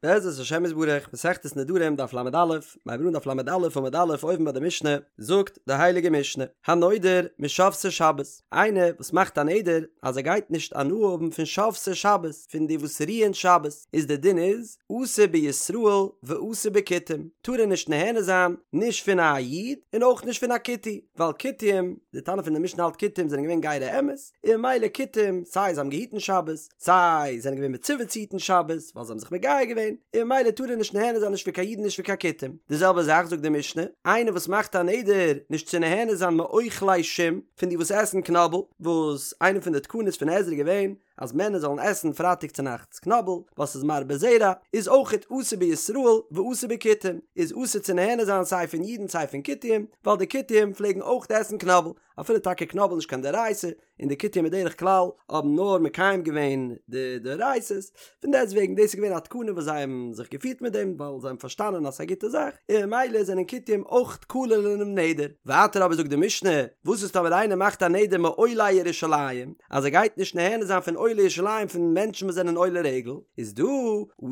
בעזרת השם יתברך, מסכת נדרים דף ל"א, מ'הייבט אן דף ל"א עמוד א' אויבן ביי די משנה, זאגט די הייליגע משנה, הנודר משובתי שבת, איינער וואס מאכט א נדר אז ער גייט נישט הנאה האבן פון שובתי שבת, פון די וואס רוען שבת, איז די דין איז, אסור בישראל ואסור בכותים, טאר ער נישט נהנה זיין נישט פון א איד און אויך נישט פון א כותי, ווייל כותים, די תנא פון די משנה האלט כותים זענען געווען גירי אמת, און ממילא כותים, סיי זיי האבן געהיטן שבת, סיי זענען געווען מצווה צו היטן שבת, ווייל זיי האבן זיך מגייר געווען, און ממילא טאר ער נישט נהנה זיין נישט פון קיין אידן נישט פון קיין כותים. די זעלבע זאך זאגט די משנה, איינער וואס מאכט א נדר נישט צו נהנה זיין מאוכלי שום, פון די וואס עסן קנאבל, וואס איינע פון די תקנות פון עזרא איז געווען אז מענער זאלן עסן פרייטאג צונאכטס קנאבל, ווייל ס'איז מרבה זרע, איז אויכעט אסור בישראל ואסור בכותים, איז אסור צו נהנה זיין סיי פון אידן סיי פון כותים, ווייל די כותים פלעגן אויך עסן קנאבל, אפילו טאקע קנאבל נישט קיין דאורייתא, און די כותים בדרך כלל האבן נאר מקיים געווען די דאורייתא'ס, פון דעסט וועגן דאס איז געווען א תקנה וואס זיי האבן זיך געפירט מיט דעם ווייל זיי האבן פארשטאנען אז ס'איז א גוטע זאך, און ממילא זענען כותים אויך כלול אינעם נדר. ווייטער אבער זאגט די משנה, וואס איז טאמער איינער מאכט א נדר מעולי ירושלים, אז ער גייט נישט נהנה זיין פון עולי ירושלים פון מענטשן וואס זענען עולי רגל, איז דא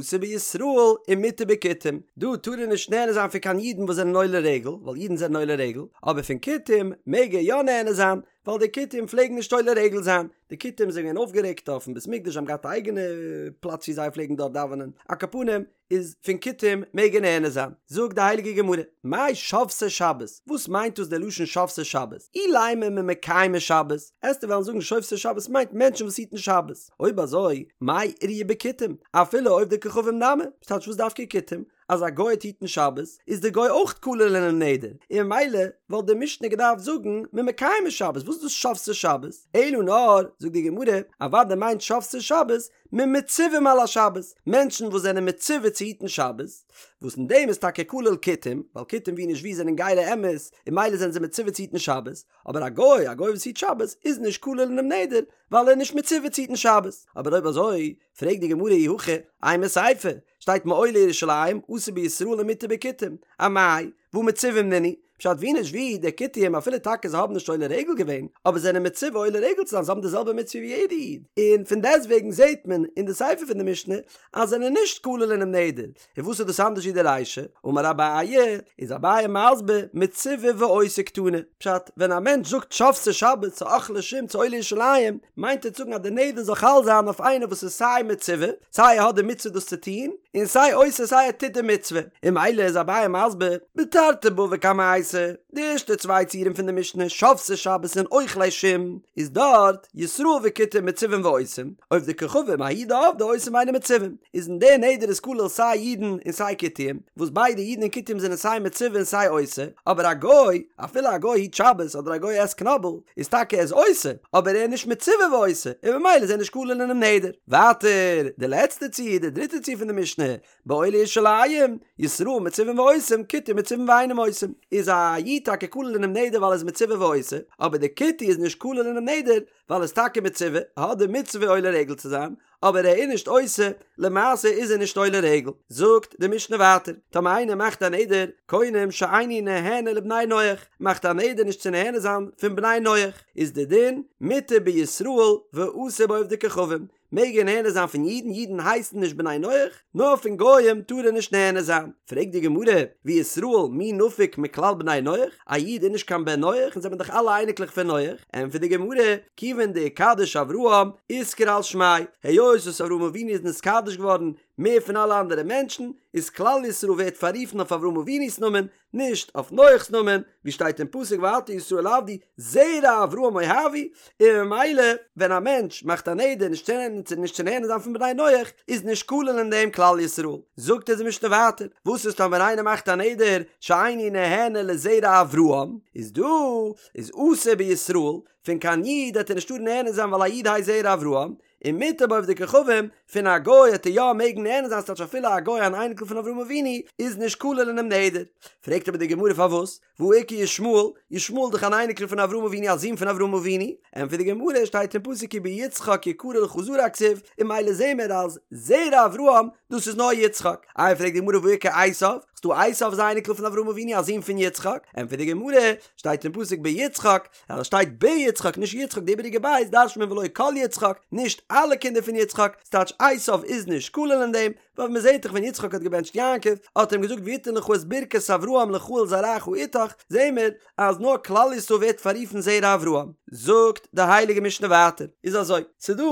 אסור בישראל ומותר בכותים, דא טאר ער נישט נהנה זיין פון קיין אידן וואס זענען עולי רגל, ווייל אידן זענען עולי רגל, אבער פון כותים מעג ער יא נהנה זיין, ווייל די כותים פלעגן נישט עולה רגל זיין, די כותים זענען געווען אויפגערעגט אויפן בית מקדש זיי האבן געהאט א אייגענע פלאץ ווי זיי פלעגן דארט דאווענען, על כל פנים איז פון כותים מעג ער נהנה זיין, זאגט די הייליגע גמרא, מאי שובתי שבת, וואס מיינט דאס דער לשון שובתי שבת, אילימא ממקיימי שבת, עסטו וועלן זאגן שובתי שבת מיינט מענטשן וואס היטן שבת, אויב אזוי מאי איריא בכותים, אפילו עובדי כוכבים נמי, ס'טייטש וואס דווקא כותים, אז א גוי וועט היטן שבת איז די גוי אויך כלול אינעם נדר, און ממילא וואלט די משנה געדארפט זאגן ממקיימי שבת, וואס איז דאס שובתי שבת? אלא נאר, זאגט די גמרא, אוודאי מיינט שובתי שבת ממצווים על השבת, מענטשן וואס זענען מצווה צו היטן שבת, וואס אין דעם איז טאקע כלול כותים, ווייל כותים ווי נישט ווי זענען גירי אמת, און ממילא זענען זיי מצווה צו היטן שבת, אבער א גוי, א גוי וואס היט שבת, איז נישט כלול אינעם נדר, ווייל ער איז נישט מצווה צו היטן שבת, אבער אויב אזוי, פרעגט די גמרא אי הכי, אימא סיפא, שטייט מעולי ירושלים, אסור בישראל ומותר בכותים, אמאי, והא מצווים נינהו, פשט ווי נישט ווי, די כותים אפילו טאקע זיי האבן נישט עולה רגל געווען, אבער זענען מצווה עולה רגל צו זיין, זיי האבן די זעלבע מצוה ווי יעדע איד, און פון דעסטוועגן זעט מען אין די סיפא פון די משנה אז זענען נישט כלול אינעם נדר, און וואס איז דאס אנדערש ווי די רישא? אמר אביי, איז אביי מסביר, מצווה ועושה קתני, פשט, ווען א מענטש זאגט שובתי שבת צו אוכלי שום צו עולי ירושלים, מיינט ער צו זאגן אז די נדר זאל חל זיין אויף איינער וואס איז סיי מצווה, סיי ער האט די מצוה דאס צו טון, און סיי עושה סיי ער טוט די מצוה, און ממילא איז אביי מסביר, בתרתי בבא קמייתא, די ערשטע צוויי ציורים פון די משנה, שובתי שבת און אוכלי שום, איז דארט, ישראל וכותים מצווים ועושים, עובדי כוכבים ההוא דעבדי עושים ואינן מצווים, איז אין די נדר איז כולל סיי אידן און סיי כותים, וואס ביידע אידן און כותים זענען סיי מצווה און סיי עושה, אבער א גוי, אפילו א גוי היט שבת אדער א גוי עסט קנאבל, איז טאקע ער איז עושה, אבער ער איז נישט מצווה ועושה, און ממילא איז ער נישט כלול אינעם נדר. ווייטער, די לעצטע ציור, די דריטע ציור פון די משנה, בעולי ירושלים, ישראל מצווים ועושים, כותים מצווים ואינם עושים, איז א איד טאקע כלול אינעם נדר ווייל ער איז מצווה ועושה, אבער די כותי איז נישט כלול אינעם נדר ווייל ער איז טאקע מצווה, האט די מצוה עולה רגל צו זיין, אבער ער איז נישט עושה, למעשה איז ער נישט עולה רגל. זאגט די משנה ווייטער, טאמער איינער מאכט א נדר, קונם שאיני נהנה לבני נח, מאכט א נדר נישט צו נהנה זיין פון בני נח, איז די דין, מותר בישראל ואסור בעובדי כוכבים, מעג ער נהנה זיין פון אידן, אידן הייסן נישט בני נח, נאר פון גוים טאר ער נישט נהנה זיין. פרעגט די גמרא, וישראל מי נפיק מכלל בני נח, א איד איז נישט קיין בן נח, אונז זעמער דאך אלע אייניקלעך פון נח, ענטפערט די גמרא, כיוון דאיקדיש אברהם, אתקרי על שמיה, היות וואס אברהם אבינו איז נתקדש געווארן מער פון אלע אנדערע מענטשן, איז כלל ישראל ווערט פאררופן אויף אברהם אבינו'ס נאמען, נישט אויף נח'ס נאמען, ווי שטייט אין פסוק ועתה ישראל עבדי זרע אברהם אוהבי, און ממילא ווען א מענטש מאכט א נדר נישט צו נישט צו נהנה זיין פון בני נח, איז נישט כולל אין דעם כלל ישראל. זאגט אונז די משנה ווייטער, וואס איז טאמער איינער מאכט א נדר שאיני נהנה לזרע אברהם, איז דא איז אסור בישראל, פון קיין איד וועט ער נישט טארן נהנה זיין ווייל א איד הייסט זרע אברהם, און מותר בעובדי כוכבים, פון א גוי וועט ער יא מעגן נהנה זיין ס'טייטש אפילו א גוי אן אייניקל פון אברהם אבינו איז נישט כולל אינעם נדר. פרעגט אבער די גמרא פארוואס, והא איכא ישמעאל, ישמעאל איז דאך אן אייניקל פון אברהם אבינו א זון פון אברהם אבינו, ענטפערט די גמרא שטייט אין פסוק כי ביצחק יקרא לך זרע כתיב, און ממילא זעהן מיר אז זרע אברהם דאס איז נאר יצחק, איי פרעגט די גמרא והא איכא עשיו? ס'דא עשיו איז א אייניקל פון אברהם אבינו א זון פון יצחק, ענטפערט די גמרא, שטייט אין פסוק ביצחק, אז עס שטייט ביצחק נישט יצחק די איבעריגע בית דרש'נט מען ולא כל יצחק, נישט אלע קינדער פון יצחק, ס'טייטש עשיו איז נישט כולל אין דעם, ווייל מ'זעט דאך ווען יצחק האט געבענטשט יעקב האט ער אים געזאגט ויתן לך את ברכת אברהם לך ולזרעך אתך, זעהן מיר אז נאר כלל ישראל ווערט פאררופן זרע אברהם. זאגט די הייליגע משנה ווייטער, איז אזוי, ס'דא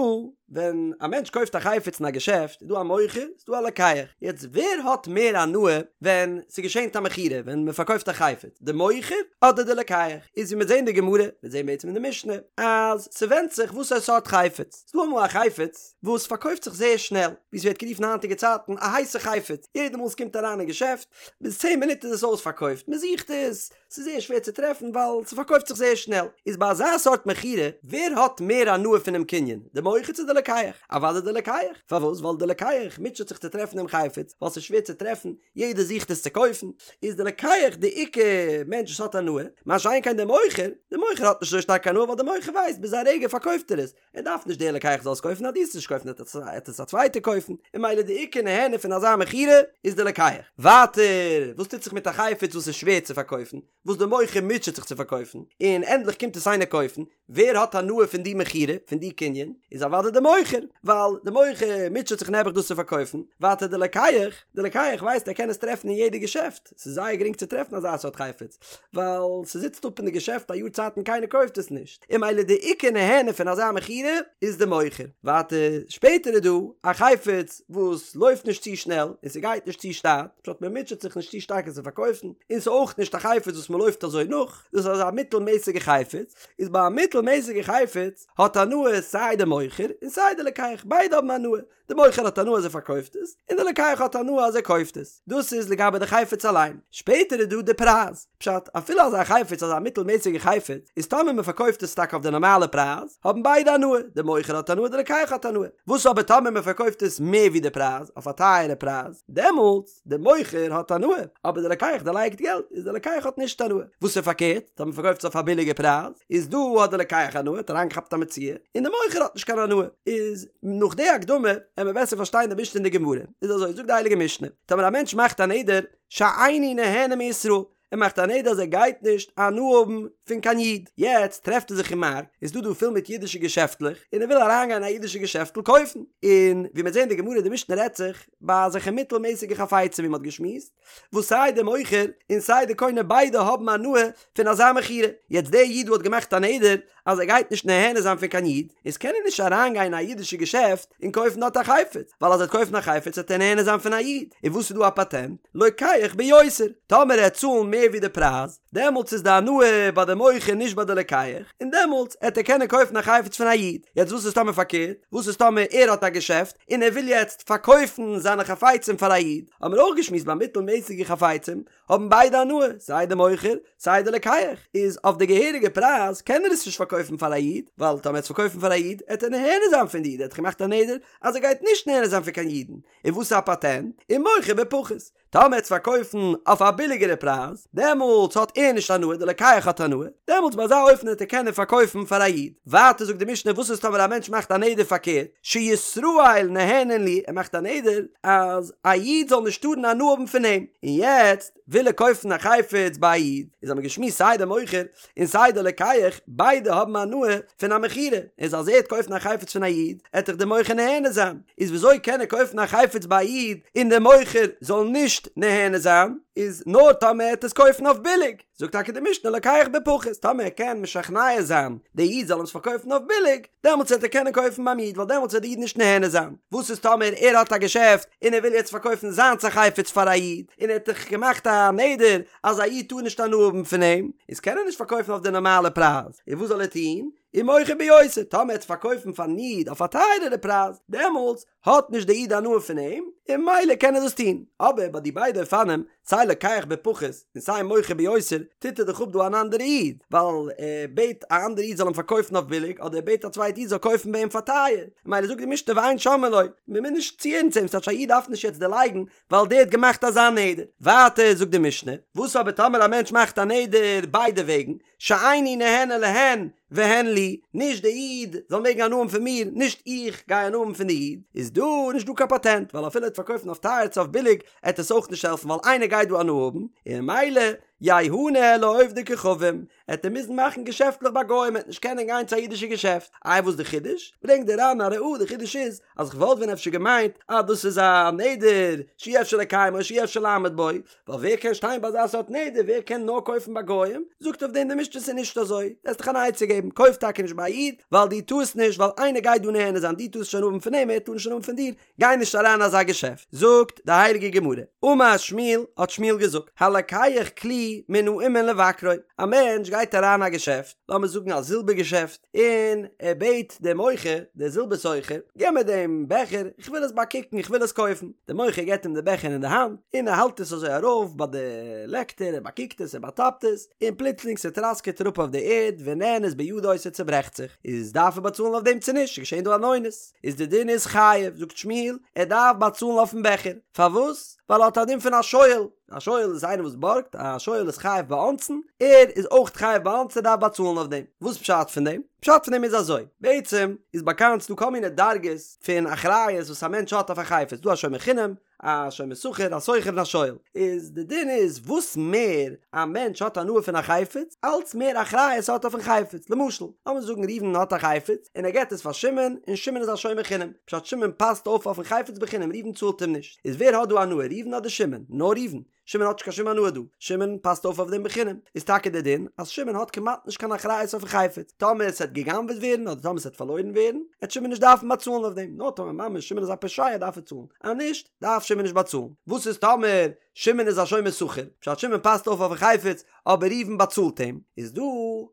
ווען א מענטש קויפט א חפץ אין א געשעפט איז דא א מוכר ס'איז דא א לוקח, יעצט ווער האט מער הנאה ווען ס'געשענט א מכירה ווען מ'פארקויפט א חפץ, די מוכר אדער די לוקח? איז ווי מיר זעהן די גמרא, מיר זעהן בעצם אין די משנה, אז ס'ווענדט זיך וואסערע סארט חפץ, ס'דא אמאל א חפץ וואס פארקויפט זיך זייער שנעל, ווי ס'ווערט גערופן היינטיגע צייטן א הייסע חפץ, יעדע מאל ס'קומט אריין אין געשעפט, ביז צען מינוט איז עס אויספארקויפט, מ'זוכט עס, ס'איז זייער שווער צו טרעפן ווייל ס'פארקויפט זיך זייער שנעל, איז ביי אזא סארט מכירה, ווער האט מער הנאה פונעם קנין, די מוכר צו די לוקח? אוודאי די לוקח, פארוואס? ווייל די לוקח מוטשעט זיך צו טרעפן דעם חפץ, ווייל ס'איז שווער צו טרעפן, יעדער זוכט עס צו קויפן, איז די לוקח די עיקר מענטש וואס האט הנאה, מה שאין כן די מוכר, די מוכר האט נישט אזוי שטארק הנאה ווייל די מוכר ווייסט ביז א רגע פארקויפט ער עס, ער דארף נישט דער לוקח זאל עס קויפן אז דו וועסט נישט קויפן וועט עס א צווייטער קויפן, און ממילא די עיקר נהנה פון אזא מכירה איז די לוקח. ווייטער, וואס טוט זיך מיט א חפץ וואס איז שווער צו פארקויפן, וואס די מוכר מוטשעט זיך צו פארקויפן, און ענדליך קומט עס איינער קויפן, ווער האט הנאה פון די מכירה, פון די קנין, איז אוודאי די מוכר, ווייל די מוכר מוטשעט זיך נעבעך דאס צו פארקויפן, ווייטער די לוקח, די לוקח ווייסט ער קען עס טרעפן אין יעדע געשעפט, ס'איז זייער גרינג צו טרעפן אזא סארט חפץ, ווייל ס'זיצט אפ אין די געשעפט א יאר צייט און קיינער קויפט עס נישט, און ממילא די עיקר נהנה פון אזא מכירה איז די מוכר. ווייטער, שפעטער איז דא א חפץ וואס לויפט נישט צו שנעל און ס'גייט נישט צו שטאט, פשט מ'מוטשעט זיך נישט צו שטארק עס צו פארקויפן, און ס'איז אויך נישט א חפץ וואס מ'לויפט אזוי נאך, דאס איז אזא מיטלמעסיגע חפץ, איז ביי א מיטלמעסיגע חפץ האט הנאה סיי די מוכר און סיי די לוקח, ביידע האבן הנאה, די מוכר האט הנאה אז ער פארקויפט עס, און די לוקח האט הנאה אז ער קויפט עס. דאס איז לגבי די חפץ אליין. שפעטער איז דא די פרייז. פשט, אפילו אזא חפץ, אזא מיטלמעסיגע חפץ, איז טאמער מען פארקויפט עס טאקע אויף די נארמאלע פרייז, האבן ביידע הנאה, די מוכר האט הנאה, די לוקח האט הנאה. וואס אבער טאמער מען פארקויפט עס מער ווי די פרייז, אויף א טייערע פרייז, דעמאלטס, די מוכר האט הנאה, אבער די לוקח דערלייגט געלט, איז די לוקח האט נישט הנאה. וואס איז פארקערט, טאמער מ'פארקויפט עס אויף א ביליגע פרייז, איז דא האט די לוקח הנאה, האט אריינגעכאפט א מציאה, און די מוכר האט נישט קיין הנאה. איז נאך די הקדמה, עמיר בעסער פארשטיין די משנה אין די גמרא. איז אזוי, זאגט די הייליגע משנה, טאמער א מענטש מאכט א נדר, שאיני נהנה מישראל, ער מאכט א נדר אז ער גייט נישט הנאה האבן פון קיין איד, יעצט טרעפט ער זיך אין מארק, איז דא דא פול מיט אידישע געשעפטלעך, און ער וויל אריינגיין אין א אידישע געשעפטל קויפן, און ווי מיר זעהן די גמרא די משנה רעדט זיך ביי אזעלכע מיטלמעסיגע חפצים ווי מען האט געשמועסט, וואס סיי די מוכר און סיי די קונה ביידע האבן הנאה פון אזא מכירה, יעצט דער איד דא האט געמאכט א נדר אז ער גייט נישט נהנה זיין פון קיין איד, איז קען ער נישט אריינגיין אין א אידישע געשעפט און קויפן דארט א חפץ, ווייל אז ער וועט קויפן א חפץ וועט ער נהנה זיין פון א איד, און וואס איז דא א פאטענט? לוקח ביותר, טאמער ער וועט צאלן מער ווי די פרייז, דעמאלטס איז די הנאה ביי די מוכר נישט ביי די לוקח, און דעמאלטס העט ער קענען קויפן א חפץ פון א איד. יעצט וואס איז טאמער פארקערט? וואס איז טאמער ער האט א געשעפט און ער וויל יעצט פארקויפן זיינע חפצים פאר א איד? האבן מיר אויך געשמועסט ביי מיטלמעסיגע חפצים האבן ביידע הנאה, סיי די מוכר סיי די לוקח, איז אויף די געהעריגע פרייז קען ער עס נישט פארקויפן פאר א איד, ווייל טאמער ער וועט עס פארקויפן פאר א איד עט ער נהנה זיין פון די איד, ער האט דאך געמאכט א נדר אז ער גייט נישט נהנה זיין פון קיין אידן, און וואס איז א פאטענט? ומוכר בפחות, טאמער ער וועט עס פארקויפן אויף א ביליגערע פרייז, דעמאלטס האט ער נישט הנאה, די לוקח האט הנאה, דעמאלטס ביי אזא אופן וועט ער קענען פארקויפן פאר א איד. ווייטער זאגט די משנה וואס איז טאמער א מענטש מאכט א נדר פארקערט, שישראל נהנין לי, ער מאכט א נדר אז א איד זאל נישט טארן הנאה האבן פון אים, און יעצט וויל ער קויפן א חפץ ביי א איד, איז האבן מיר געשמועסט סיי די מוכר און סיי די לוקח, ביידע האבן הנאה פון א מכירה, איז אז ער וועט קויפן א חפץ פון א איד, עט דאך די מוכר נהנה זיין, איז וויאזוי קען ער קויפן א חפץ ביי א איד און די מוכר זאל נישט נהנה זיין, איז נאר טאמער ער וועט עס קויפן אויף ביליג. זאגט טאקע די משנה לוקח בפחות, טאמער ער קען משכנע זיין די איד זאל אים עס פארקויפן אויף ביליג, דעמאלטס וועט ער קענען קויפן ביים איד ווייל דעמאלטס וועט די איד נישט נהנה זיין, וואס איז טאמער ער האט א געשעפט און ער וויל יעצט פארקויפן זיינס א חפץ פאר א איד, און ער האט דאך געמאכט א נדר אז א איד טאר נישט הנאה האבן פון אים, איז קען ער נישט פארקויפן אויף די נארמאלע פרייז, און וואס זאל ער טון? ומוכר ביותר, טאמער ער וועט פארקויפן פארן איד אויף א טייערערע פרייז, דעמאלטס האט נישט די איד הנאה פון אים, און ממילא קען ער דאס טון. אבער ביי די ביידע אופנים, סיי לוקח בפחות און סיי מוכר ביותר, טוט ער דאך אפ דא אן אנדערע איד, ווייל ער בעט א אנדערע איד זאל אים פארקויפן אויף ביליג, אדער ער בעט א צווייטע איד זאל קויפן ביי אים פאר טייער. ממילא זאגט די משנה ואין שומעין לו, מען מוז נישט צוהערן צו אים, ס'טייטש א איד דארף נישט יעצט דערלייגן ווייל דער האט געמאכט אזא נדר. ווייטער זאגט די משנה, וואס אבער טאמער א מענטש מאכט א נדר ביידע וועגן, שאיני נהנה להן והן לי, נישט די איד זאל מעגן הנאה האבן פון מיר, נישט איך גיי הנאה האבן פון די איד, איז דא נישט דא קיין פאטענט, ווייל אפילו ער וועט פארקויפן אויף טייער צו אויף ביליג, עט עס אויך נישט העלפן ווייל איינער גייט. גייט דא הנאה האבן, און ממילא ייהנה לעובדי כוכבים, עט ער מוזן מאכן געשעפטלעך ביי גוים, ער עט נישט קענען גיין צו א אידישע געשעפט. איי וואס די חידוש? ברענגט די ר"ן א ראיה, די חידוש איז אז כ'וואלט ווען אפשר געמיינט אז דאס איז א נדר שאי אפשר לקיימו שאי אפשר לעמוד בו, ווייל ווער קען שטיין ביי אזא סארט נדר, ווער קען נאר קויפן ביי גוים? זאגט אויף דעם די משנה ס'איז נישט אזוי, וועסט דיך אן עצה געבן, קויף טאקע נישט ביי א איד, ווייל דו טארסט נישט, ווייל איינער גייט דא נהנה זיין, דו טארסט נישט הנאה האבן פון אים, ער טאר נישט הנאה האבן פון דיר, גיי נישט אריין אין אזא געשעפט. זאגט די הייליגע גמרא, אמר שמואל, האט שמואל געזאגט, הלוקח כלי מן האומן לבכרו, א מענטש גייט אריין א געשעפט, לאמיר זאגן א זילבער געשעפט, און ער בעט דעם מוכר, דער זילבער סוחר, געב מיר דעם בעכער, איך וויל עס באקוקן, איך וויל עס קויפן. דער מוכר געבט אים די בעכער אין די האנט, און ער האלט עס אזוי ארויף ביי די לעקטער, ער באקוקט עס, ער באטאפט עס, און פלוצלינג ס'טראסקעט אראפ אויף די ערד, ונאנס בידו, ס'צעברעכט זיך. איז דארף ער באצאלן אויף דעם צו נישט? ס'איז געשען דא אן אונס. איז די דין איז חייב, זאגט שמואל, ער דארף באצאלן אויפן בעכער. פארוואס? ווייל ער האט א דין פון א שואל. א שואל איז איינער וואס בארגט, א שואל איז חייב באונסין, ער איז אויך חייב באונסין, ער דארף באצאלן אויף דעם. וואס פשט פון דעם? פשט פון דעם איז אזוי, בעצם איז באקאנט ס'דא כל מיני דרגות פון אחריות וואס א מענטש האט אויף א חפץ, ס'דא א שומר חינם, א שומר שכר, א שוכר און א שואל. איז די דין איז וואס מער א מענטש האט הנאה פון א חפץ, אלץ מער אחריות האט ער אויפן חפץ. למשל, לאמיר זאגן ראובן האט א חפץ, און ער געט עס פאר שמעון, און שמעון איז א שומר חינם, פשט שמעון פאסט אויף אויפן חפץ בחינם, ראובן צאלט אים נישט. איז ווער האט דא הנאה ראובן אדער שמעון? נאר ראובן. שמעון האט נישט קיין שום הנאה דא. שמעון פאסט אויף אויף דעם בחינם. איז טאקע דער דין אז שמעון האט כמעט נישט קיין אחריות אויפן חפץ. טאמער עס וועט גע'גנב'עט ווערן אדער טאמער עס וועט פארלוירן ווערן, וועט שמעון נישט דארפן באצאלן אויף דעם. נאר טאמער ממש שמעון איז א פושע דארף ער צאלן. אז נישט, דארף שמעון נישט באצאלן. וואס איז טאמער שמעון איז א שומר שכר? פשט שמעון פאסט אויף אויפן חפץ, אבער ראובן באצאלט אים, איז דא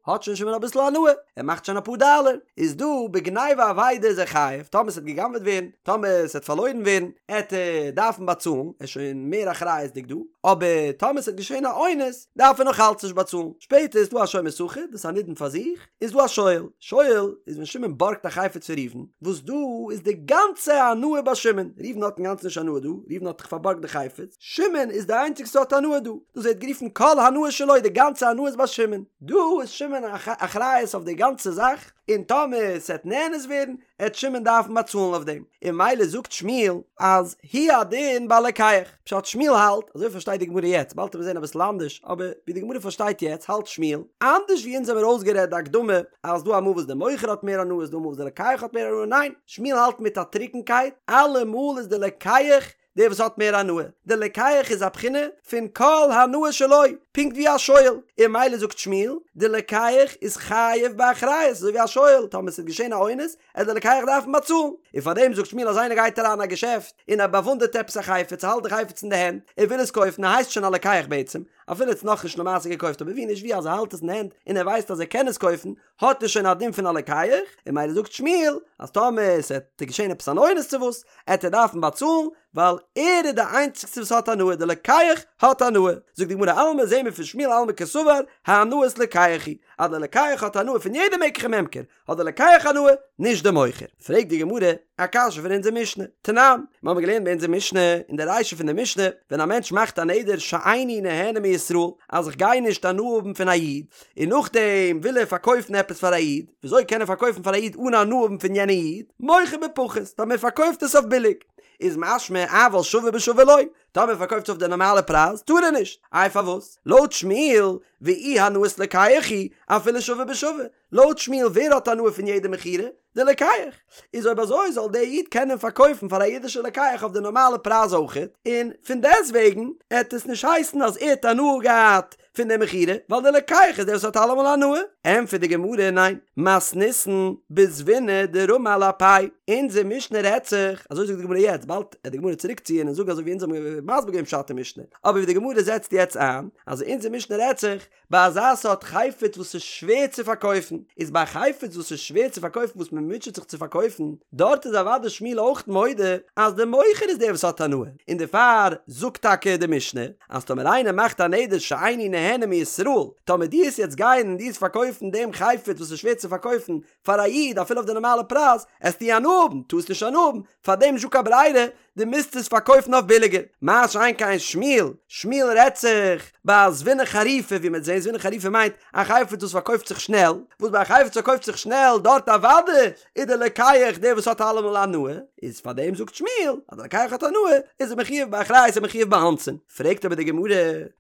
האט שוין שמעון אביסל הנאה, ער מאכט שוין אפאר דאלער, איז דא בגניבה ואבידה איז ער חייב, טאמער ס'וועט גע'גנב'עט ווערן, טאמער ס'וועט פארלוירן ווערן, עט ער דארפן באצאלן, ער איז שוין מער אחריות'דיג דא, אבער טאמער ס'וועט געשען א אונס, דארף ער נאך אלץ נישט באצאלן. שפעטער איז דא א שומר שכר, דאס איז א נידון פאר זיך, איז דא א שואל, שואל איז ווען שמעון בארגט א חפץ פון ראובן, וואס דא איז די גאנצע הנאה ביי שמעון, ראובן האט אינגאנצן נישט הנאה דא, ראובן האט דאך פארבארגט די חפץ, שמעון איז די איינציגסטע וואס האט הנאה דא, דאס ווערט גערופן כל הנאה שלו, די גאנצע הנאה איז ביי שמעון, דא איז שמעון אחריות אויף די גאנצע זאך, און טאמער ס'עט נאנס ווערן, עט שמעון דארפן באצאלן אויף דעם, און ממילא זאגט שמואל אז הוא הדין בלוקח, פשט שמואל האלט, אזוי פארשטייט די גמרא יעצט, באלד וועט מען זען אביסל אנדערש, אבער ווי די גמרא פארשטייט יעצט האלט שמואל, אנדערש ווי אונז האמיר אויסגערעדט די הקדמה אז ס'דא אמאל וואס די מוכר האט מער הנאה ס'דא אמאל וואס די לוקח האט מער הנאה, ניין, שמואל האלט מיט א טרוקנקייט, אלעמאל איז די לוקח דער וואס האט מער הנאה, דער לוקח איז א בחינה פון כל הנאה שלו, פונקט ווי א שואל, און ממילא זאגט שמואל, דער לוקח איז חייב באחריות, אזוי ווי א שואל, טאמער ס'וועט געשען א אונס, עט דער לוקח דארפן באצאלן, און פארדעם זאגט שמואל אז איינער גייט אריין אין א געשעפט און ער באוואונדערט עפעס א חפץ, ער האלט די חפץ אין די הענט, ער וויל עס קויפן, ער הייסט שוין א לוקח בעצם, אפילו ער האט עס נאכנישט למעשה געקויפט, אבער ווי נישט ווי אז ער האלט עס אין די הענט און ער ווייסט אז ער קען עס קויפן, האט ער שוין א דין פון א לוקח, און ממילא זאגט שמואל אז טאמער ס'עט געשען עפעס אן אונס צו וואס, עט ער דארפן באצאלן, ווייל ער איז די איינציגסטע וואס האט הנאה, די לוקח האט הנאה. זאגט די גמרא אלמא זעהן מיר פון שמואל אלמא קסבר הנאת לוקח היא, אז די לוקח האט הנאה פון יעדע מקח וממכר, האט די לוקח הנאה, נישט די מוכר. פרעגט די גמרא א קשיא פון אונזער משנה, תנן, מיר האבן געלערנט ביי אונזער משנה, אין די רישא פון די משנה, ווען א מענטש מאכט א נדר שאיני נהנה מישראל, אז איך גיי נישט הנאה האבן פון א איד, און נאכדעם וויל ער פארקויפן עפעס פאר א איד, וויאזוי קען ער פארקויפן פאר א איד אן הנאה האבן פון יענע איד? מוכר בפחות, טאמער ער פארקויפט עס אויף ביליג, איז משמע אבל שווה בשווה לא, טאמער ער פארקויפט עס אויף די נארמאלע פרייז, טאר ער נישט. איי פארוואס? לויט שמואל, ואי הנאת לוקח היא, אפילו שווה בשווה, לויט שמואל ווער האט הנאה פון יעדע מכירה? די לוקח. איז אויב אזוי זאל דער איד קענען פארקויפן פאר א אידישע לוקח אויף די נארמאלע פרייז אויכעט, און פון דעסטוועגן עט עס נישט הייסן אז ער האט הנאה געהאט פון די מכירה, ווייל די לוקח איז דער וואס האט אלעמאל הנאה. ענטפערט די גמרא ניין, מתניתין בזביני דרמי על אפיה, אונזער משנה רעדט זיך, אזוי זאגט די גמרא יעצט, באלד עט די גמרא צוריק ציען און זאגן אזוי ווי אונז האבן מסביר געווען פשט אין משנה, אבער ווי די גמרא זעצט יעצט איין, אז אונזער משנה רעדט זיך, ביי אזא סארט חפץ וואס איז שווער צו פארקויפן, איז ביי א חפץ וואס איז שווער צו פארקויפן וואס מען מוטשעט זיך צו פארקויפן, דארט איז אוודאי שמואל אויך מודה אז דער מוכר איז דער וואס האט הנאה, און דערפאר זאגט טאקע די משנה אז טאמער איינער מאכט א נדר שאיני נהנה מישראל, טאמער דו עסט יעצט גיין און דו עסט פארקויפן דעם חפץ וואס איז שווער צו פארקויפן פאר א איד אפילו אויף די נארמאלע פרייז, עסטו הנאה האבן, טארסט נישט הנאה האבן, פארדעם נישטא קיין ברירה, דו מוזט עס פארקויפן אויף ביליגער. מה שאין כן שמואל, שמואל רעדט זיך. ביי א זבינא חריפא ווי מ'וועט זעהן זבינא חריפא מיינט א חפץ וואס פארקויפט זיך שנעל, וואס ביי א חפץ פארקויפט זיך שנעל דארט אוודאי איז די לוקח דער וואס האט אלעמאל הנאה, איז פאר דעם זאגט שמואל אז די לוקח האט הנאה איז ער מחויב באחריות און מחויב באונסין. פרעגט אבער די גמרא,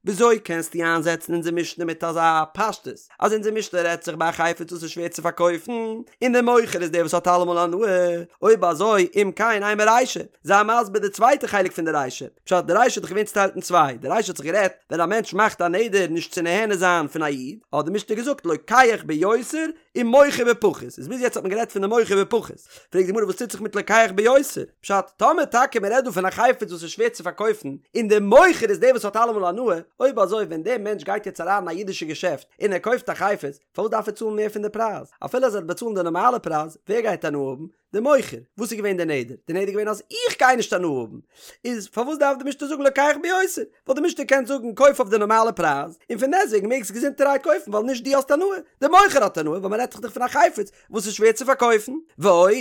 וויאזוי קענסטו איינזעצן אונזער משנה מיט אזא פשטות אז אונזער משנה רעדט זיך ביי א חפץ וואס איז שווער צו פארקויפן און דער מוכר איז דער וואס האט אלעמאל הנאה, אויב אזוי אם כן אימא רישא, זיי מסביר די צווייטע חלק פון די רישא, פשט די רישא האט דאך געווען צוטיילט אין צוויי, די רישא האט זיך גערעדט ווען א מענטש מאכט א נדר נישט צו נהנה זיין פון א איד, האט די משנה געזאגט לוקח ביותר ומוכר בפחות, איז ביז יעצט האט מען גערעדט פון די מוכר בפחות, פרעגט די גמרא וואס טוט זיך מיט לוקח ביותר, פשט טאמער טאקע מען רעדט דא פון א חפץ וואס איז שווער צו פארקויפן, און די מוכר איז דער וואס האט אלעמאל הנאה, אויב אזוי ווען דער מענטש גייט יעצט אריין אין א אידישע געשעפט און ער קויפט א חפץ, פארוואס דארף ער צאלן מער פון די פרייז? אפילו אז ער וועט באצאלן די נארמאלע פרייז, ווער גייט הנאה האבן? די מוכר, וואס איז געווען די נדר? די נדר איז געווען אז איך גיי נישט הנאה האבן, איז פארוואס דארף די משנה זאגן לוקח ביותר? וואלט די משנה געקענט זאגן קויף אויף די נארמאלע פרייז, און פון דעסטוועגן מעגסט געזונטערהייט קויפן ווייל נישט דו האסט הנאה, די מוכר האט הנאה, ווייל מען רעדט זיך דאך פון א חפץ וואס איז שווער צו פארקויפן. ועוד,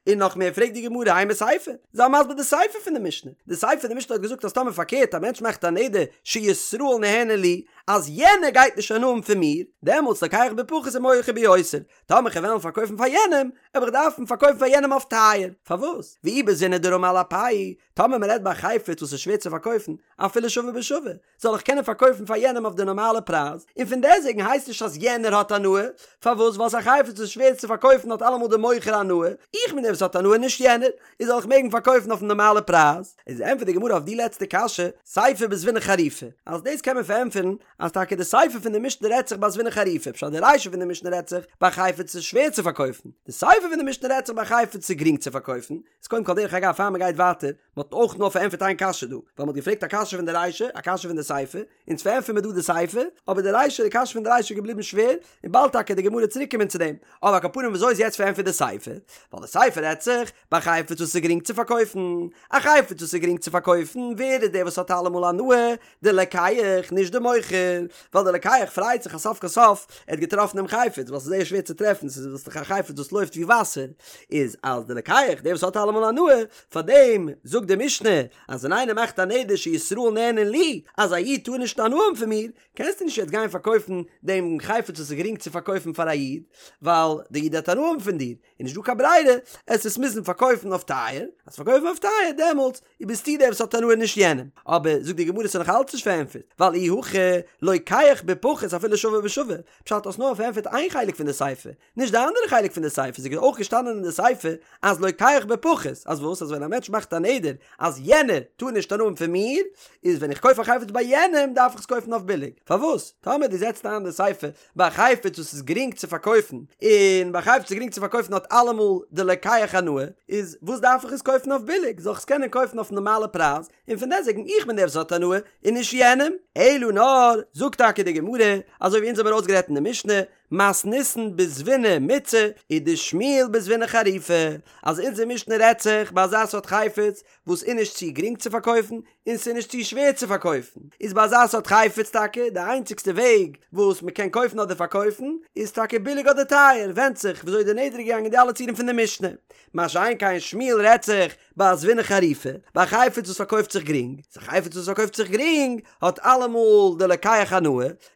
און נאך מער פרעגט די גמרא אימא סיפא, זיי מסביר די סיפא פון די משנה, די סיפא פון די משנה האט געזאגט אז טאמער פארקערט א מענטש מאכט א נדר שישראל נהנה לי, אז יענער גייט נישט הנאה האבן פון מיר, דעמאלטס לוקח בפחות ומוכר ביותר, טאמער כ'וועל וועלן פארקויפן פאר יענעם, וועל איך דארפן פארקויפן פאר יענעם אויף טייער. פארוואס? ואי בזבינא דרמי על אפיה, טאמער מ'רעדט ביי א חפץ וואס איז שווער צו פארקויפן, אפילו שווה בשווה, זאל איך קענען פארקויפן פאר יענעם אויף די נארמאלע פרייז, און פון דעסוועגן הייסט נישט אז יענער האט הנאה, פארוואס? ווייל ס'איז א חפץ וואס איז שווער צו פארקויפן האט אלעמאל די מוכר הנאה, איך בין דער וואס האט הנאה נישט יענער, איז זאל איך מעגן פארקויפן אויפן נארמאלע פרייז? איז ענטפערט די גמרא אויף די לעצטע קשיא, סיפא בזבינא חריפא, אז דאס קען מען פארענטפערן אז טאקע די סיפא פון די משנה רעדט זיך ביי זבינא חריפא, פשט די רישא פון די משנה רעדט זיך ביי חפץ ס'איז שווער צו פארקויפן, די סיפא פון די משנה רעדט זיך ביי חפץ ס'איז גרינג צו פארקויפן, איז קודם כל דרך אגב פאר מ'גייט ווייטער, מ'האט אויך נאר פארענטפערט איין קשיא דא, ווייל מ'האט געפרעגט א קשיא פון די רישא, א קשיא פון די סיפא, אונז פארענטפערן מיר דא די סיפא, אבער די רישא, די קשיא פון די רישא איז געבליבן שווער, און באלד טאקע די גמרא צוריק קומען צו דעם, אבער על כל פנים וויאזוי איז יעצט פארענטפערט די סיפא? ווייל די סיפא רעדט זיך ביי חפץ וואס איז גרינג צו פארקויפן, א חפץ וואס איז גרינג צו פארקויפן, ווער איז דער וואס האט אלעמאל הנאה? די לוקח, נישט די מוכר, ווייל די לוקח פרייט זיך אז סוף כל סוף ער האט געטראפן דעם חפץ, ווייל ס'איז זייער שווער צו טרעפן, ס'איז דאך א חפץ וואס לויפט ווי וואסער, איז אז די לוקח, דער וואס האט אלעמאל הנאה, פאר דעם זאגט די משנה אז ווען איינער מאכט א נדר שישראל נהנין לי, אז א איד טאר נישט הנאה האבן פון מיר, קענסטו נישט יעצט גיין פארקויפן דעם חפץ וואס איז גרינג צו פארקויפן פאר א איד, ווייל די איד וועט הנאה האבן פון דיר, איז נישט דא קיין ברירה, עסט עס מוזן פארקויפן אויף טייער, אז פארקויפן אויף טייער דעמאלטס ביסטו דער וואס האט הנאה נישט יענעם, אבער זאגט די גמרא ס'איז נאך אלץ נישט פארענטפערט, ווייל אי הכי לוקח בפחות אפילו שווה בשווה, פשט האסט נאר פארענטפערט איין חלק פון די סיפא, נישט די אנדערע חלק פון די סיפא, ס'איז אויך געשטאנען אין די סיפא אז לוקח בפחות, אז וואס אז ווען א מענטש מאכט א נדר אז יענער טאר נישט הנאה האבן פון מיר, איז ווען איך קויף א חפץ ביי יענעם דארף איך עס קויפן אויף ביליג, פארוואס? טאמער דו זעצט איין די סיפא ביי א חפץ וואס איז גרינג צו פארקויפן, און ביי א חפץ וואס איז גרינג צו פארקויפן האט אלעמאל די לוקח הנאה, איז וואס דארף איך עס קויפן אויף ביליג, זאל איך עס קענען קויפן אויף נארמאלע פרייז, און פון דעסטוועגן איך בין דער וואס האט הנאה, און נישט יענעם. אלא נאר, זאגט טאקע די גמרא, אזוי ווי אונז האבן ארויסגערעדט אין די משנה, מתניתין בזבינא מיצעא, ודשמואל בזבינא חריפא, אז אונזער משנה רעדט זיך ביי אזא סארט חפץ וואס איז נישט צו גרינג צו פארקויפן, און ס'איז נישט צו שווער צו פארקויפן, איז ביי אזא סארט חפץ טאקע די איינציגסטע וועג וואס מ'קען קויפן אדער פארקויפן איז טאקע ביליג אדער טייער, ווענדט זיך וויאזוי די נדר איז געגאנגען די אלע ציורים פון די משנה. מה שאין כן שמואל רעדט זיך ביי א זבינא חריפא, ביי א חפץ וואס פארקויפט זיך גרינג, איז א חפץ וואס פארקויפט זיך גרינג האט אלעמאל די לוקח הנאה,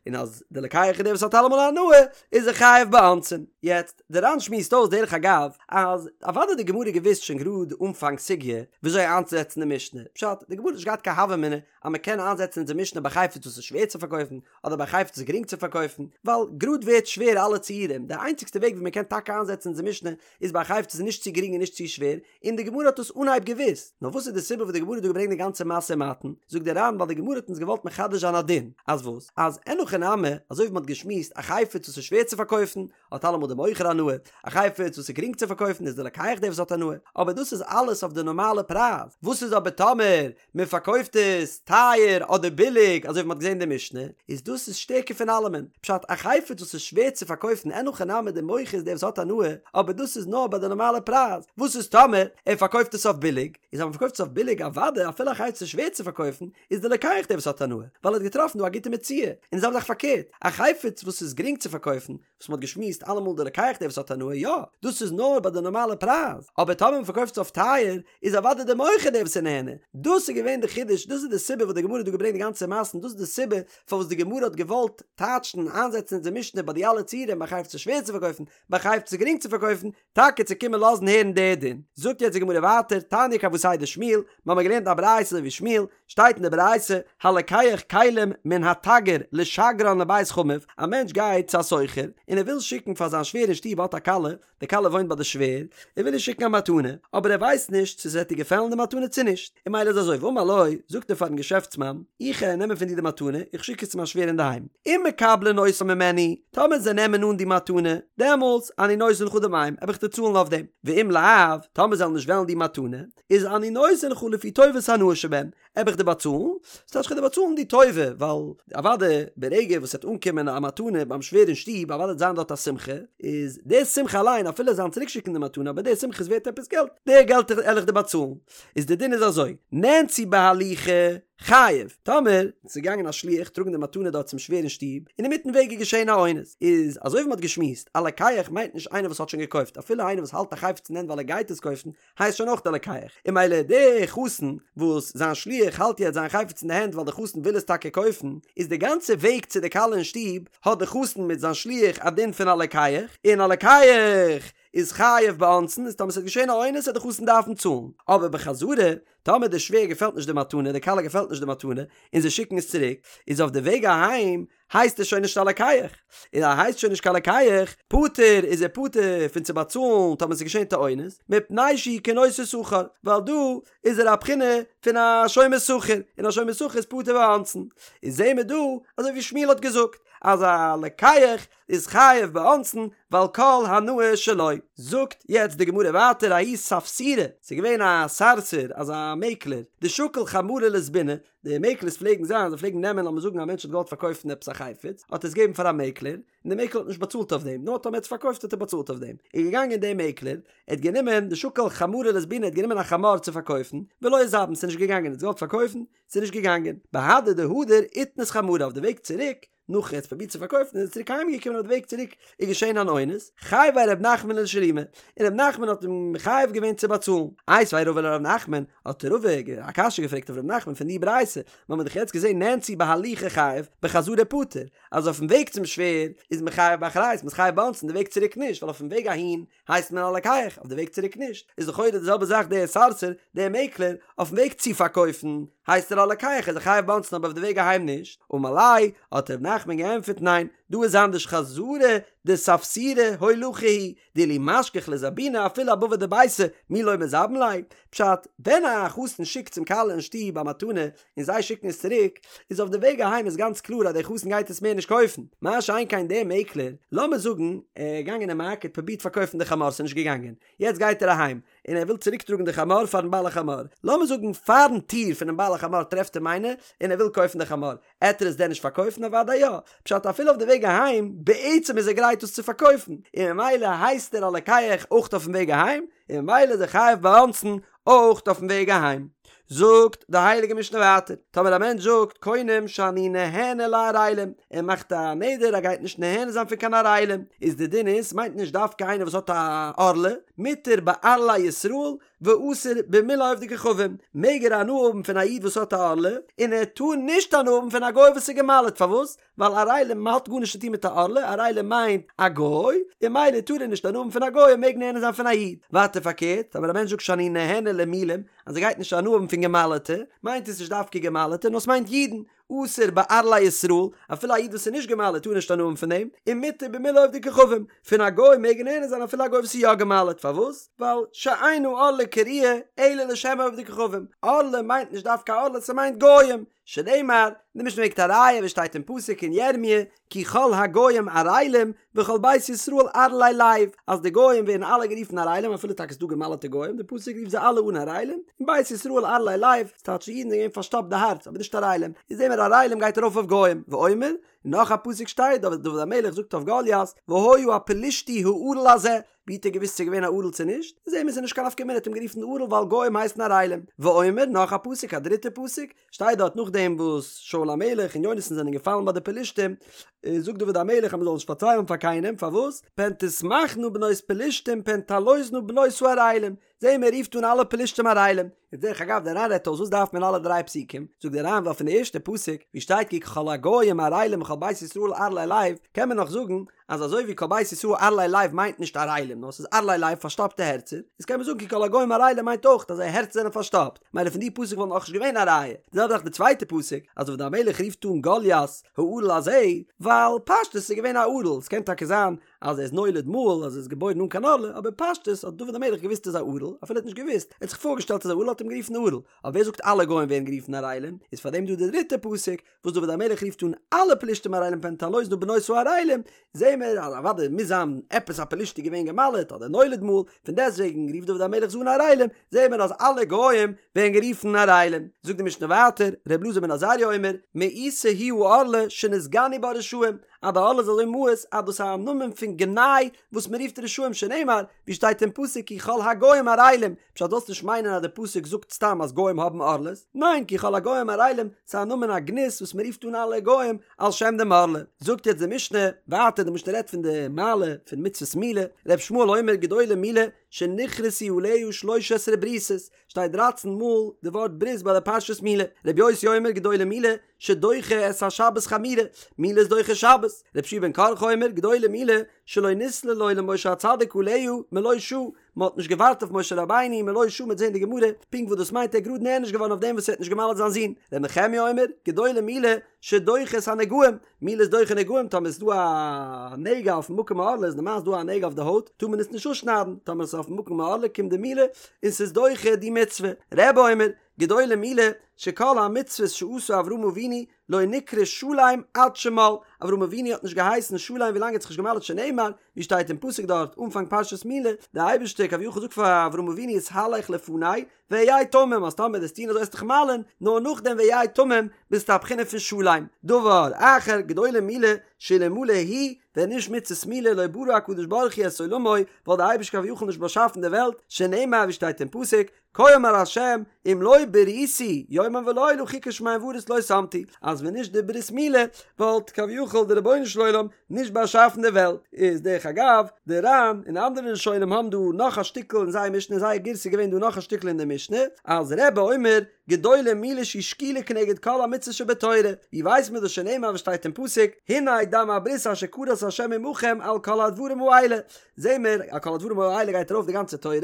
און אז די לוקח איז דער וואס האט אלעמאל הנאה איז ער חייב באונסין. יעצט, די ר"ן שמועסט אויס דרך אגב אז אוודאי האט די גמרא געוואוסט שוין גראד אנפאנג סוגיא וויאזוי איינצוזעצן די משנה, פשט, די גמרא האט נישט געהאט קיין הוה אמינא אז מען קען איינזעצן אונזער משנה ביי חפץ וואס איז שווער צו פארקויפן אדער ביי חפץ וואס איז גרינג צו פארקויפן, ווייל גראד ווערט שווער אלע ציורים, די איינציגסטע וועג ווי מען קען טאקע איינזעצן אונזער משנה איז ביי א חפץ וואס איז נישט צו גרינג און נישט צו שווער, און די גמרא האט דאס אנהייב געוואוסט, נאר וואס איז די סיבה וואס די גמרא האט דא געברענגט די גאנצע משא ומתן, זאגט דער ר"ן ווייל די גמרא האט אונז געוואלט מחדש זיין א דין, אז וואס? אז אין הכי נמי, אזוי ווי מען האט געשמועסט, א חפץ וואס איז שווער צו פארקויפן, האט אלעמאל די מוכר הנאה, א חפץ וואס איז גרינג צו פארקויפן איז די לוקח דער וואס האט הנאה, אבער דאס איז אלעס אויף די נארמאלע פרייז, וואס איז אבער טאמער מען פארקויפט עס טייער אדער ביליג אזוי ווי מען האט געזען אין די משנה, איז דאס איז שטערקער פון אלעמען, פשט א חפץ וואס איז שווער צו פארקויפן אין הכי נמי די מוכר איז דער וואס האט הנאה, אבער דאס איז נאר ביי די נארמאלע פרייז, וואס איז טאמער ער פארקויפט עס אויף ביליג, איז אז מען פארקויפט עס אויף ביליג אוודאי אפילו א חפץ איז שווער צו פארקויפן, איז די לוקח דער וואס האט הנאה, ווייל ער האט געטראפן דא א גוטע מציאה, און די זעלבע זאך פארקערט, א חפץ וואס איז גרינג צו פארקויפן, וואס מ'האט געשמועסט אלעמאל די לוקח דער וואס האט הנאה, יא, דאס איז נאר ביי די נארמאלע פרייז, אבער טאמער מ'פארקויפט עס אויף טייער, איז אוודאי די מוכר דער וואס איז נהנה, דאס איז געווען די חידוש. חידוש, דאס איז די סיבה וואס די גמרא האט דא געברענגט די גאנצע מעשה און דאס איז די סיבה פארוואס די גמרא האט געוואלט טייטשן און איינזעצן אונזער משנה ביי די אלע ציורים ביי חפץ שווער צו פארקויפן, ביי חפץ גרינג צו פארקויפן, טאקע צו קומען לאזן הערן די דין. זאגט יעצט די גמרא ווייטער, תניא כוותיה דשמואל, מיר האבן געלערנט א ברייתא אזוי ווי שמואל, שטייט אין די ברייתא, הלוקח כלים מן התגר לשגרן לבית חמיו, א מענטש גייט צו א סוחר און ער וויל שיקן פאר זיין שווער אין שטוב האט א כלה, די כלה וואוינט ביי די שווער, ער וויל איר שיקן א מתנה, אבער ער ווייסט נישט צו ס'וועט איר געפעלן די מתנה צו נישט, און ממילא איז אזוי, ואמר לו, זאגט ער פארן געשעפטסמאן, איך גיי נעמען פון דיר די מתנה, איך שיק עס צו מיין שווער אינדערהיים, אם מקבלין אותה ממני, טאמער זיי נעמען אן די מתנה, דעמאלטס, אני נותן לך דמיהם, וועל איך דיר צאלן אויף דעם, ואם לאו, טאמער זיי וועלן נישט וועלן די מתנה, איז אני נותן לך לפי טובת הנאה שבהם, וועל איך דיר באצאלן, ס'טייטש כ'וועל דיר באצאלן די טובה, ווייל אוודאי ברגע וואס ס'וועט אנקומען א מתנה ביים שווער אין שטוב, אוודאי וועט זיין דארט א שמחה, איז די שמחה אליין אפילו זיין צוריקשיקן די מתנה אבער די שמחה איז ווערט עפעס געלט, די געלט וועל איך דיר באצאלן. איז די דין איז אזוי, נאנסו בהליכה חייב, טאמער ס'איז געגאנגען א שליח טראגן די מתנה דארט צום שווער אין שטוב, און אינמיטן וועג איז געשען א אונס, איז אזוי ווי מ'האט געשמועסט, א לוקח מיינט נישט איינער וואס האט שוין געקויפט, אפילו איינער וואס האלט א חפץ אין הענט ווייל ער גייט עס קויפן, הייסט שוין אויך א לוקח, און ממילא די חתן וואס זיין שליח האלט יעצט זיין חפץ אין די הענט ווייל די חתן וויל עס טאקע קויפן, איז די גאנצע וועג צו די כלה אין שטוב האט די חתן מיט זיין שליח א דין פון א לוקח, און א לוקח איז חייב באונסין, איז טאמער ס'וועט געשען א אונס וועט די חתן דארפן צאלן, אבער בחזרה, טאמער די שווער געפעלט נישט די מתנה, די כלה געפעלט נישט די מתנה, און זיי שיקן עס צוריק, איז אויף די וועג אהיים הייסט עס שוין נישט א לוקח, און אז ער הייסט שוין נישט קיין לוקח, פטור איז ער פטור פון צו באצאלן טאמער ס'איז געשען די אונס, מפני שהוא כנושא שכר, ווייל דא איז ער א בחינה פון א שומר שכר, און א שומר שכר איז פטור באונסין. איז זעהן מיר דא אזוי ווי שמואל האט געזאגט אז א לוקח איז חייב באונסין ווייל כל הנאה שלו. זאגט יעצט די גמרא ווייטער ההוא ספסירא, ס'איז געווען א סארסער אזא מעקלער, דשקיל חמרא לזביני, די מעקלערס פלעגן זיין, זיי פלעגן נעמען לאמיר זאגן א מענטש האט געוואלט פארקויפן עפעס א חפץ, האט ער עס געגעבן פאר א מעקלער, און דער מעקלער האט נישט באצאלט אויף דעם, נאר טאמער ער האט עס פארקויפט האט ער באצאלט אויף דעם. איז געגאנגען דער מעקלער, ער האט גענומען דשקיל חמרא לזביני, ער האט גענומען א חמור צו פארקויפן, ולא איזבין, ס'איז נישט געגאנגען, ער האט געוואלט פארקויפן, ס'איז נישט געגאנגען. בהדי דהדר איתנס חמרא אויף די וועג צוריק, נאך ער האט פרובירט צו פארקויפן איז ער צוריק אהיים געקומען אויף די וועג צוריק איז געשען אן אונס, חייביה ר' נחמן לשלומי, און ר' נחמן האט אים מחייב געווען צו באצאלן. איתיביה רבא לר' נחמן, האט רבא א קשיא געפרעגט אויף ר' נחמן פון די ברייתא, מיר האבן דאך יעצט געזען נאנסו בהליכה חייב, בחזרה פטור, אז אויפן וועג צום שווער איז מען חייב באחריות, מען איז חייב באונסין, די וועג צוריק נישט, ווייל אויפן וועג אהין הייסט מען א לוקח, אויף די וועג צוריק נישט, איז לכאורה די זעלבע זאך דער סארסער, דער מעקלער, אויפן וועג צו פארקויפן, הייסט ער א לוקח, איז ער חייב באונסין אבער אויף די וועג אהיים נישט, אמר ליה, האט ר' נחמן געענטפערט ניין, דא איז אנדערש חזרה דספסירא הולכה היא, דאילו משכח לזבוני אפילו אבבא דביתיה, מי לא מזבין ליה, פשט, ווען א חתן שיקט צום כלה אין שטוב א מתנה, און זיי שיקן עס צוריק, איז אויף די וועג אהיים איז גאנץ קלאר אז דער חתן גייט עס מער נישט קויפן, מה שאין כן דער מעקלער, לאמיר זאגן ער איז געגאנגען אין מארקעט פרובירט פארקויפן די חמור ס'איז נישט געגאנגען, יעצט גייט ער אהיים, און ער וויל צוריק טראגן די חמור פארן בעל החמור, לאמיר זאגן פארן טיר פונעם בעל החמור טרעפט אים איינער און ער וויל קויפן די חמור, עט ער עס דען נישט פארקויפן? אוודאי יא, פשט אפילו אויף די וועג אהיים, בעצם איז ער גרייט עס צו פארקויפן, און ממילא הייסט ער א לוקח אויך אויפן וועג אהיים, און ממילא איז ער חייב באונסין אויך אויפן וועג אהיים. זאגט די הייליגע משנה ווייטער, טאמער א מענטש זאגט קונם שאני נהנה לערלים, ער מאכט א נדר ער גייט נישט נהנה זיין פון קיין ערלים, איז די דין איז, ס'מיינט נישט דווקא איינער וואס האט א ערלה, מותר בערלי ישראל ואסור במילי עובדי כוכבים, מעג ער הנאה האבן פון א איד וואס האט א ערלה, און ער טאר נישט הנאה האבן פון א גוי וואס איז גע'מל'ט, פארוואס? ווייל ערלים האט גארנישט צו טון מיט א ערלה, ערלים מיינט א גוי, און ממילא טאר ער נישט הנאה האבן פון א גוי און מעג נהנה זיין פון א איד. ווייטער פארקערט, אבער א מענטש זאגט שאני נהנה למולים, אז ער גייט נישט הנאה האבן פון גע'מל'טע, מיינט עס נישט דווקא גע'מל'טע, נאר עס מיינט אידן, אסור בערלי ישראל, אפילו א איד וואס איז נישט גע'מל'ט טאר נישט הנאה האבן פון דעם, און מותר במילי עובדי כוכבים, פון א גוי מעג ער נהנה זיין אפילו א גוי וואס איז יא גע'מל'ט, פארוואס? ווייל שאין הערלה קרויה אלא לשם עובדי כוכבים, ערלה מיינט נישט דווקא ערלה, ס'מיינט גויים, שנאמר, די משנה ברענגט א ראיה וואס שטייט אין פסוק אין ירמיה, כי כל הגוים ערלים וכל בית ישראל ערלי לב, אז די גוים ווערן אלע גערופן ערלים אפילו טאקע ס'דא געמל'טע גוים, די פסוק רופט זיי אלע אן ערלים, און בית ישראל ערלי לב, ס'טייטש די אידן זענען געווען פארשטאפט די הארץ, אבער נישט ערלים, איז זעהן מיר ערלים גייט ארויף אויף גוים, ואומר, און און נאך א פסוק שטייט דוד דוד המלך זאגט אויף גוליית והיה הפלשתי הערל הזה, ווי האט ער געוואוסט ס'איז געווען א ערל צו נישט? זעהן מיר ס'איז נישט קיין נפקא מינה, האט אים גערופן ערל ווייל גוים הייסן ערלים. ואומר, נאך א פסוק, א דריטע פסוק, שטייט דארט נאכדעם וואס שאול המלך און יונתן זענען געפאלן ביי די פלשתים, זאגט דוד המלך אז מ'זאל נישט פארציילן פאר קיינעם, פארוואס? פן תשמחנה בנות פלשתים פן תעלוזנה בנות הערלים, זעהן מיר ער רופט אן אלע פלשתים ערלים. איז דרך אגב דער ר"ן רעדט אויס וואס דארף מען אלע דריי פסוקים, זאגט דער ר"ן ווייל פון די ערשטע פסוק ווי שטייט כי כל הגוים ערלים וכל בית ישראל ערלי לב קען מען נאך זאגן אז אזוי ווי כל בית ישראל ערלי לב מיינט נישט ערלים נאר ס'איז ערלי לב פארשטאפטע הערצער, איז קען מען זאגן כי כל הגוים ערלים מיינט אויך אז זייער הערצער זענען פארשטאפט, מילא פון די פסוק וואלט נאכנישט געווען א ראיה, די זעלבע זאך די צווייטע פסוק אז דוד המלך רופט אן גוליית הערל הזה ווייל פשטות איז געווען א ערל, ס'קען טאקע זיין אז ער איז נולד מהול אז ער איז געבוירן אן קיין ערלה, אבער פשטות האט דוד המלך געוואוסט ער איז א ערל, אפילו ער האט נישט געוואוסט, ער האט זיך פארגעשטעלט אז ער איז א ערל האט אים גערופן ערל, אבער ווער זאגט אלע גוים ווערן גערופן ערלים, איז פארדעם דא די דריטע פסוק וואס דוד המלך רופט אן אלע פלישתים ערלים פן תעלוזנה בנות הערלים, זעהן מיר אז אוודאי מוז זיין עפעס א פלישתי געווען גע'מל'עט אדער נולד מהול, פון דעסטוועגן רופט דוד המלך זיי אן ערלים, זעהן מיר אז אלע גוים ווערן גערופן ערלים. זאגט די משנה ווייטער, ר' אלעזר בן עזריה אומר, מאוסה היא הערלה שנתגנו בה רשעים, אז די ערלה איז אזוי מאוס אז דאס איז א נאמען פון גנאי וואס מען רופט רשעים שנאמר, ווי שטייט אין פסוק כי כל הגוים ערלים, פשט זאלסט נישט מיינען אז די פסוק זאגט סתם אז גוים האבן ערלות, ניין כי כל הגוים ערלים ס'איז א נאמען א גנות וואס מען רופט אן אלע גוים על שם דעם ערלה. זאגט יעצט די משנה ווייטער, די משנה רעדט פון די מעלה פון מצוות מילה, ר' ישמעאל אומר גדולה מילה שנכרתו עליה שלש עשרה בריתות, שטייט דרייצן מאל די ווארט ברית ביי די פרשת מילה, ר' יוסי אומר גדולה מילה שדוחה את השבת חמורה, מילה איז דוחה שבת, ר' יהושע בן קרחה אומר גדולה מילה שלא נסלל לו למשה הצדיק עליה מלא שעה, מען האט נישט געווארט אויף משה רבינו מלא שעה מ'וועט זען די גמרא פונקט וואס דאס מיינט ער איז גראד נענש געווארן אויף דעם וואס ער האט נישט געמל'ט זיין זון, ר' נחמיה אומר גדולה מילה שדוחה את הנגעים, מילה איז דוחה נגעים טאמער איז דא א נגע אויפן מקום הערלה איז נארמאל איז דא א נגע אויף די הויט טאר מען עס נישט אפשניידן טאמער עס איז אויפן מקום הערלה קומט די מילה און ס'איז דוחה די מצוה רבי אומר גדולה מילה שכל המצוות שעשה אברהם אבינו לא נקרא שלם עד שמל אברהם אבינו האט נישט געהייסן שלם ווילאנג ער האט זיך נישט געמל'ט שנאמר ווי שטייט אין פסוק דארט אנפאנג פרשת מילה די אייבערשטער כביכול זאגט פאר אברהם אבינו התהלך לפני והיה תמים אז טאמער וועסט טון אזוי וועסט דיך מל'ען, נאר נאכדעם והיה תמים ביסטו א בחינה פון שלם. דבר אחר, גדולה מילה, שאלמלא היא, ווען נישט מצות מילה לא ברא הקדוש ברוך הוא את עולמו, וואלט די אייבערשטער כביכול נישט באשאפן די וועלט, שנאמר ווי שטייט אין פסוק, כה אמר ה' אם לא בריתי יומם ולילה חוקות שמים וארץ לא שמתי, אז ווען נישט די ברית מילה וואלט כביכול די רבונו של עולם נישט באשאפן די וועלט, איז דרך אגב, די ר"ן און אנדערע ראשונים האבן דא נאך א שטיקל אין זייער משנה, אין זייער גירסא איז געווען דא נאך א שטיקל אין די משנה, אז רבי אומר, גדולה מילה שהיא שקולה כנגד כל המצוות שבתורה, ווי ווייסט מען דאס שנאמר וואס שטייט אין פסוק, הנה דם הברית אשר כרת ה' עמכם על כל הדברים האלה, זעהן מיר על כל הדברים האלה גייט ארויף די גאנצע תורה,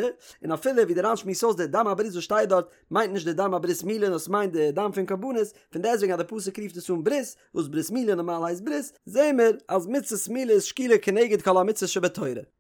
און אפילו ווי די ר"ן שמועסט אויס די דם הברית וואס שטייט דארט מיינט נישט די דם הברית מילה נאר ס'מיינט די דם פון קרבנות, פון דעסטוועגן אז די פסוק רופט עס אן ברית, וואס ברית מילה נארמאל הייסט ברית, זעהן מיר אז מצות מילה איז שקולה כנגד כל המצוות שבתורה.